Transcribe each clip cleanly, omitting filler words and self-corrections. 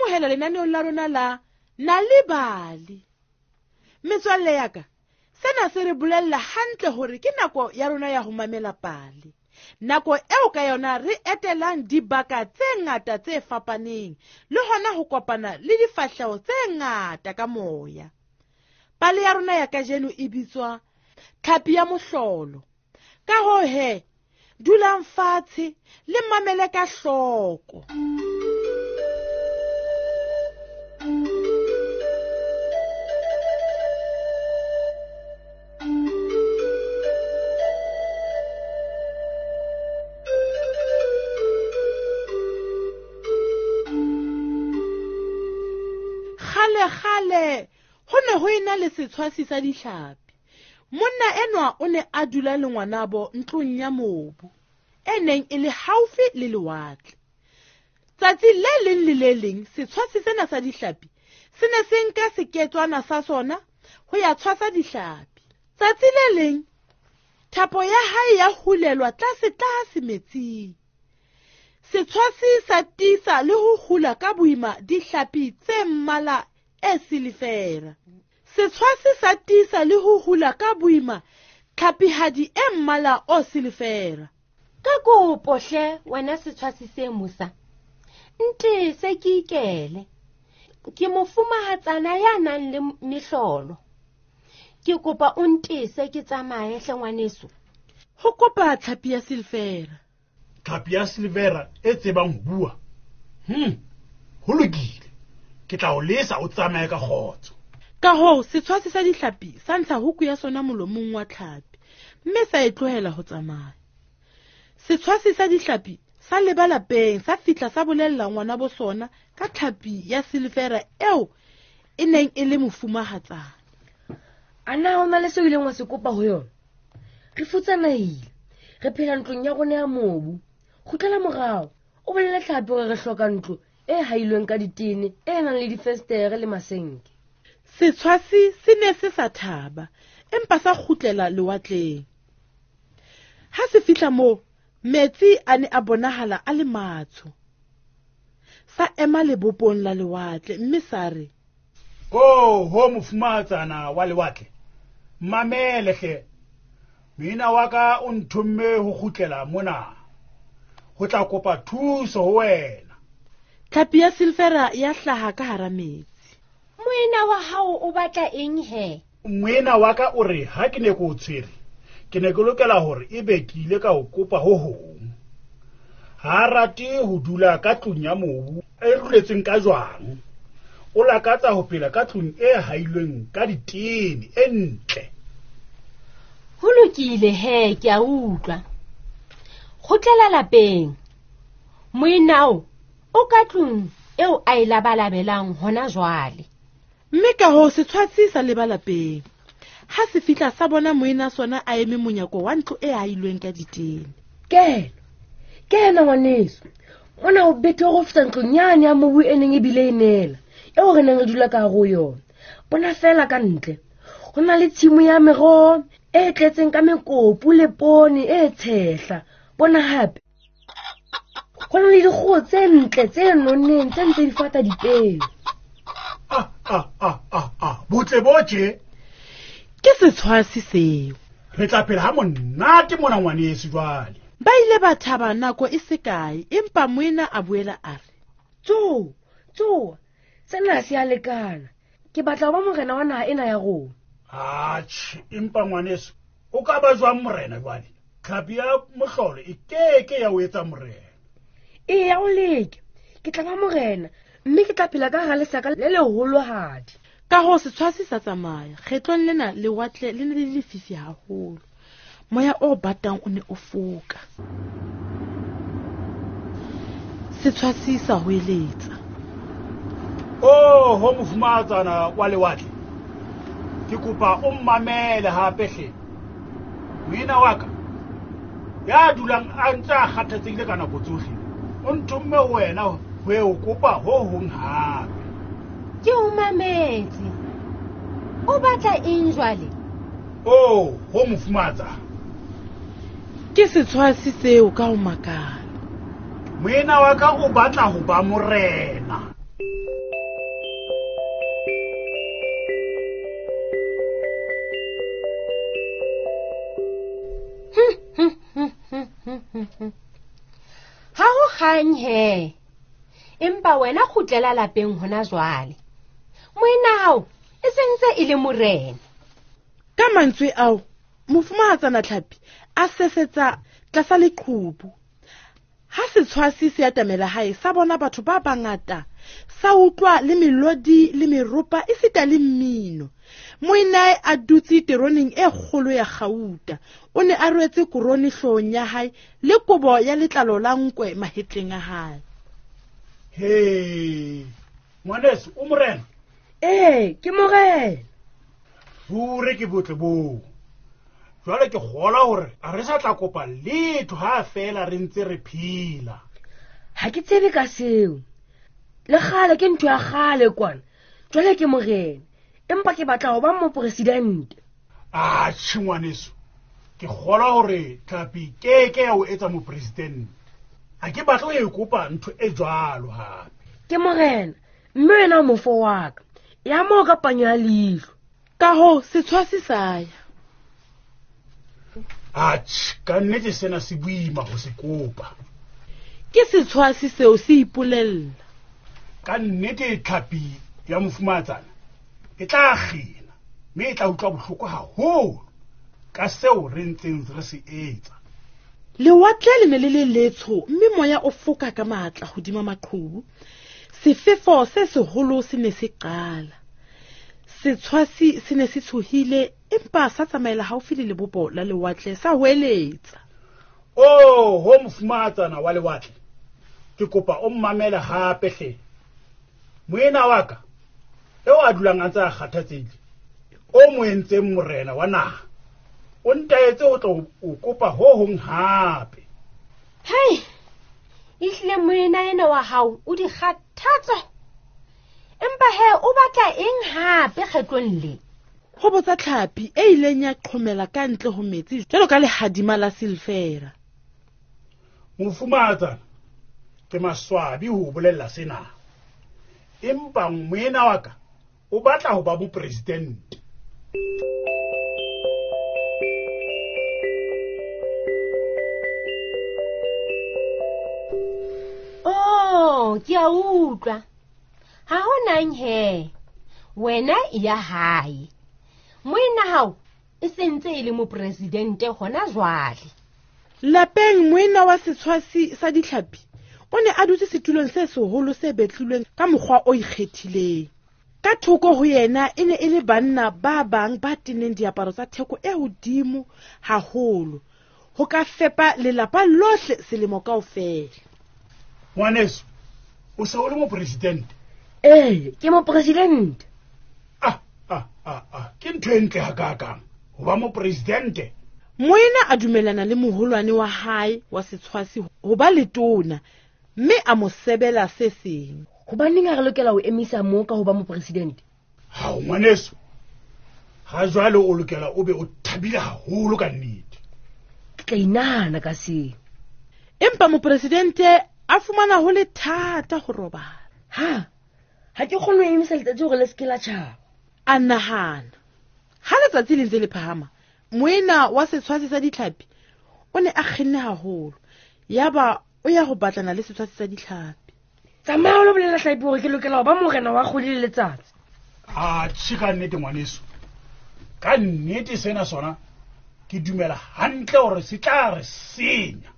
amohela lenaneong la rona la Nal'ibali. Metswalle ya ka, sena se re bolella hantle hore ke nako ya rona ya ho mamela pale. Nako eo ka yona re etelang dibaka tse ngata tse fapaneng le hona ho kopana le difahleho tse ngata ka moya. Pale ya rona ya kajeno e bitswa Tlhapi ya Mohlolo. Ka hoo he, dulang fatshe le mamele ka hloko. Kgale-kgale ho ne ho ena le setshwasi sa dihlapi. Monna enwa o ne a dula le ngwanabo ntlong ya mobu e neng e le haufi le lewatle. Tsatsi le leng le le leng setshwasi sena sa dihlapi se ne se nka seketswana sa sona ho ya tshwasa dihlapi. Tsatsi le leng thapo ya hae ya hulelwa tlase-tlase metsing. Setshwasi sa tiisa le ho hula ka boima dihlapi tse mmala e silifera. Setshwasi sa tiisa le ho hula ka boima tlhapihadi e mmala o silifera. Ka kopo hle wena setshwasi se mosa, ntese ke ikele. Ke mofumahatsana ya nang le mehlolo. Ke kopa o ntese ke tsamaye hle ngwaneso. Ho kopa tlhapi ya silifera. Tlhapi ya silivera e tsebang ho bua. Ho lokile. Ke tla o lesa o tsamaye ka kgotso. Ka hoo setshwasi sa dihlapi sa ntsha huku ya sona molomong wa tlhapi mme sa e tlohela ho tsamaya. Setshwasi sa dihlapi sa leba lapeng sa fihla sa bolella ngwana bo sona ka tlhapi ya silivera eo e neng e le mofumahatsana. A na ho na le seo ileng wa se kopa ho yona? Re futsanehile, re phela ntlong ya rona ya mobu. Kgutlela morao, o bolele tlhapi hore re hloka ntlo e hailweng ka ditene, e nang le difestere le masenke. Setshwasi se ne se sa thaba, empa sa kgutlela lewatleng. Ha se fihla moo, metsi a ne a bonahala a le matsho. Sa ema lebopong la lewatle mme sa re, Oh, ho mofumahatsana wa lewatle, mamele hle. Moena wa ka o nthomme ho kgutlela mona ho tla kopa thuso ho wena. Tlhapi ya silfera ya hlaha ka hara metsi. Moena wa hao o batla eng he? Moena wa ka o re ha ke ne ke o tshwere, ke ne ke lokela hore ebe ke ile ka o kopa ho hong. Ha a rate ho dula ka tlung ya mobu e ruletsweng ka jwang. O lakatsa ho phela ka tlung e hailweng ka ditene e ntle. Ho lokile he, ke a utlwa. Kgutlela lapeng. Moenao o ka tlung eo a e labalabelang hona jwale. Mme ka hoo setshwasi sa leba lapeng. Ha se fihla sa bona moena sona a eme monyako wa ntlo e hailweng ka ditene. Kena, kena ngwaneso. Mona o bethe go feta ntlong yane ya mobu e neng e bile e neela, eo re neng re dula ka hare ho yona. Bona fela ka ntle. Ho na le tshimo ya meroho e tletseng ka mekopu le poone e tshehla. Bona hape. Ho na le dikgoho tse ntle tse nonneng tse ntse di fata dipeo. Ah, ah, ah, ah, ah. Botle bo tje. Ke setshwasi seo. Re tla phela ha monate mona ngwaneso jwale. Ba ile ba thaba nako e se kae, empa moena a boela a re, Tsoha, tsoha, sena se a lekana. Ke batla ho ba morena wa naha ena ya rona. Atjhe, empa ngwaneso, o ka ba jwang morena jwale? Tlhapi ya mohlolo e keke ya o etsa morena. Eya, o leke. Ke tla ba morena, mme ke tla phela ka hara lesaka le leholohadi. Ka hoo setshwasi sa tsamaya. Kgetlong lena lewatle le ne le lefifi haholo. Moya o batang o ne o foka. Setshwasi sa hoeletsa. Oh, ho mofumahatsana wa lewatle. Ke kopa o mmamele hape hle. Moena wa ka ya dulang a ntse a kgathatsehile ka nako tsohle, o nthomme ho wena ho e o kopa ho hong hape. Ke o mametse. O batla eng jwale? Oh, ho mofumahatsana. Ke setshwasi seo ka ho makala. Moena wa ka o batla ho ba morena. Ha ho kgang he. Empa wena kgutlela lapeng hona jwale. Moena hao e sentse e le morena. Ka mantswe ao, mofumahatsana Tlhapi a sesetsa tlasa leqhubu. Ha setshwasi se atamela hae, sa bona batho ba bangata, sa utlwa le melodi le meropa esita le mmino. Moenae a dutse teroneng e kgolo ya kgauta. O ne a rwetse korone hloohong ya hae le kobo ya letlalo la nkwe mahetleng a hae. He, ngwaneso, o morena? Ee, ke morena. Ruri ke botle boo. Jwale ke kgolwa hore a re sa tla kopa letho ha feela re ntse re phela. Ha ke tsebe ka seo. Le kgale ke ntho ya kgale kwana. Jwale ke morena, empa ke batla ho ba mopresidente. Atjhe ngwaneso, ke kgolwa hore tlhapi keke ya o etsa mopresidente. Ha ke batle ho e kopa ntho e jwalo hape. Ke morena, mme wena o mofo wa ka. Ya moo ka panyo ya leihlo. Ka hoo setshwasi sa ya. Atjhe, ka nnete sena se boima ho se kopa. Ke setshwasi seo se ipolella. Ka nnete tlhapi ya mofumahatsana e tla kgina, mme e tla utlwa bohloko haholo ka seo re ntseng re se etsa. Lewatle le ne le le letsho, mme moya o foka ka matla hodima maqhubu. Sefefo se seholo se ne se qala. Setshwasi se ne se tshohile, empa sa tsamaela haufi le lebopo la lewatle sa hoeletsa. Oh, ho mofumahatsana wa lewatle, ke kopa o mmamele hape hle. Moena wa ka, eo a dulang a ntse a kgathatsehile, o mo entseng morena wa naha, o ntaetse ho tla o kopa ho hong hape. Hei, ehlile moena ena wa hao o di kgathatso. Empa he, o batla eng hape kgetlong le? Ho botsa tlhapi e ileng ya qhomela ka ntle ho metsi jwalo ka lehadima la silfera. Mofumahatsana, ke maswabi ho o bolella sena. Empa moena wa ka o batla ho ba mopresidente. Oh, ke a utlwa. Ha ho nang he. Wena e ya hae. Moena hao e sentse e le mopresidente hona jwale. Lapeng moena wa setshwasi sa ditlhapi o ne a dutse setulong se seholo se betlilweng ka mokgwa o ikgethileng. Ka thoko ho yena e ne e le banna ba bang ba teneng diaparo tsa theko e hodimo haholo ho ka fepa lelapa lohle selemo kaofela. Ngwaneso, o se o le mopresidente? Ee, ke mopresidente. Ah, ah, ah, ah, ke ntho e ntle hakaakang ho ba mopresidente. Moena a dumellana le moholwane wa hae wa setshwasi ho ba letona, mme a mo sebela se seng. Hobaneng ha re lokela ho emisa moo ka ho ba mopresidente? Hao, ngwaneso, ha jwale o lokela o be o thabile haholo ka nnete. Ke tla inahana ka seo. Empa mopresidente a fumana ho le thata ho robala. Ha, ha ke kgone ho emisa letsatsi hore le se ke la tjhaba. A nahana. Ha letsatsi le ntse le phahama, moena wa setshwasi sa ditlhapi o ne a kgenne haholo. Yaba o ya ho batlana le setshwasi sa ditlhapi. Tsamaya o lo bolela tlhapi hore ke lokela ho ba morena wa kgwedi le letsatsi. Atjhe, ka nnete ngwaneso. Ka nnete sena sona ke dumela hantle hore se tla re senya.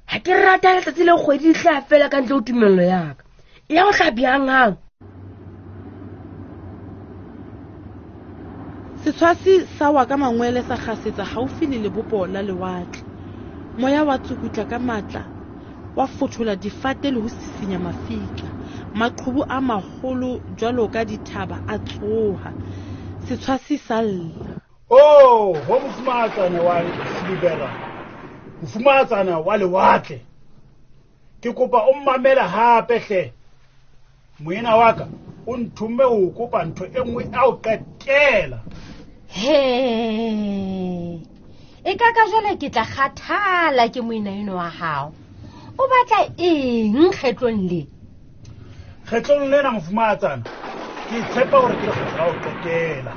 Ha ke rata letsatsi le kgwedi di tla fela ka ntle ho tumello ya ka. E ya ho hlapi hanghang. Setshwasi sa wa ka mangwele sa kgasetsa haufi le lebopo la lewatle. Moya wa tsukutla ka matla, wa fothola difate le ho sisinya mafika. Maqhubu a maholo jwalo ka dithaba a tsoha. Setshwasi sa lla. Oh, ho mofumahatsana wa Silibera, mofumahatsana wa lewatle. Ke kopa o mmamele hape hle. Moena wa ka o nthomme ho kopa ntho e nngwe a o qetela. He, e ka ka jwale ke tla kgathala ke moena eno wa hao. O batla eng kgetlong le? Kgetlong lena mofumahatsana, ke tshepa hore ke lekgetlo la ho qetela.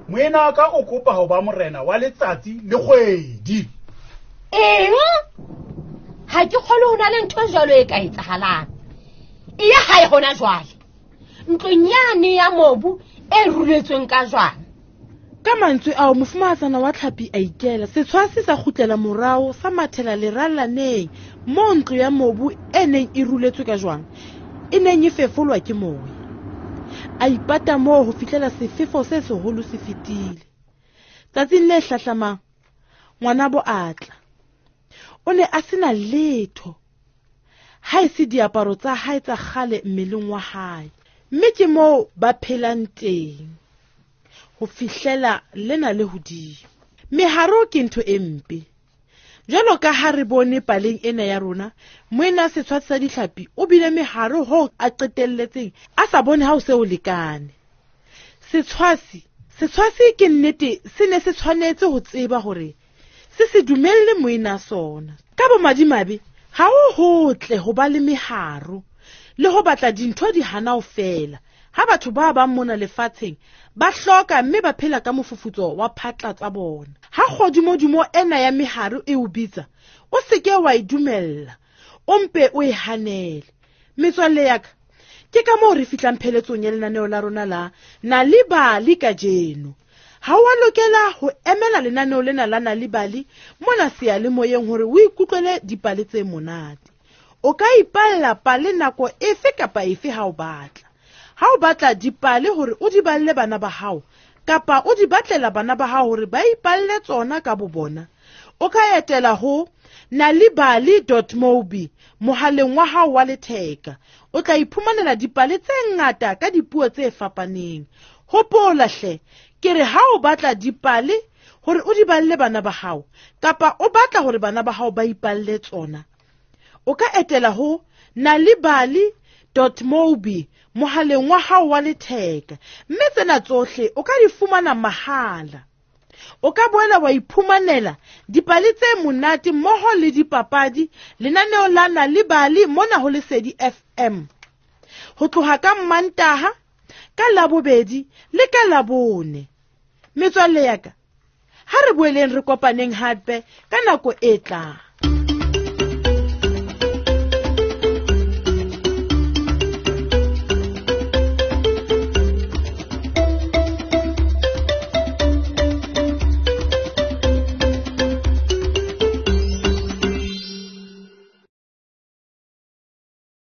Moena wa ka o kopa ho ba morena wa letsatsi le kgwedi. Eng? Ha ke kgolwe ho na le ntho e jwalo e ka etsahalang. E ya hae hona jwale. Ntlong yane ya mobu e ruletsweng ka jwang. Ka mantswe ao mofumahatsana wa tlhapi a ikela, setshwasi sa kgutlela morao sa mathela lerallaneng moo ntlo ya mobu e neng e ruletswe ka jwang e neng e fefolwa ke moya. A ipata moo ho fihlela sefefo se seholo se fetile. Tsatsing le hlahlamang ngwanabo a tla. O ne a sena letho ha e se diaparo tsa hae tsa kgale mmeleng wa hae, mme ke moo ba phelang teng ho fihlela lena le hodimo. Meharo ke ntho e mpe. Jwalo ka ha re bone paleng ena ya rona, moena setshwatsi sa ditlhapi o bile meharo hoo a qetelletseng a sa bone ha o se o lekane. Setshwasi, setshwasi ke nnete se ne se tshwanetse ho tseba hore se se dumelle moena sona. Ka bomadimabe, ha ho hotle ho ba le meharo le ho batla dintho di hana ho fela. Ha batho ba bang mona lefatsheng ba hloka mme ba phela ka mofufutso wa phatla tsa bona. Ha kgodimodimo ena ya meharo e o bitsa, o seke wa e dumella, o mpe o e hanele. Metswalle ya ka, ke ka moo re fihlang pheletsong ya lenaneo la rona la Nal'ibali kajeno. Ha o a lokela ho emela lenaneo lena la Nal'ibali mona seyalemoyeng hore o ikutlwele dipale tse monate. O ka ipalla pale nako efe kapa efe ha o batla. Ha o batla dipale hore o di balle bana ba hao, kapa o di batlela bana ba hao hore ba ipalle tsona ka bobona, o ka etela ho nalibali.mobi mohaleng wa hao wa letheka. O tla iphumanela dipale tse ngata ka dipuo tse fapaneng. Hopola hle, ke re ha o batla dipale hore o di balle bana ba hao, kapa o batla hore bana ba hao ba ipalle tsona, o ka etela ho nalibali.mobi mohaleng wa hao wa letheka, mme tsena tsohle o ka di fumana mahala. O ka boela wa iphumanela dipale tse monate mmoho le dipapadi lenaneo la Nal'ibali mona ho Lesedi FM. Ho tloha ka Mmantaha, ka Labobedi le ka Labone. Metswalle ya ka, ha re boeleng re kopaneng hape ka nako e tlang.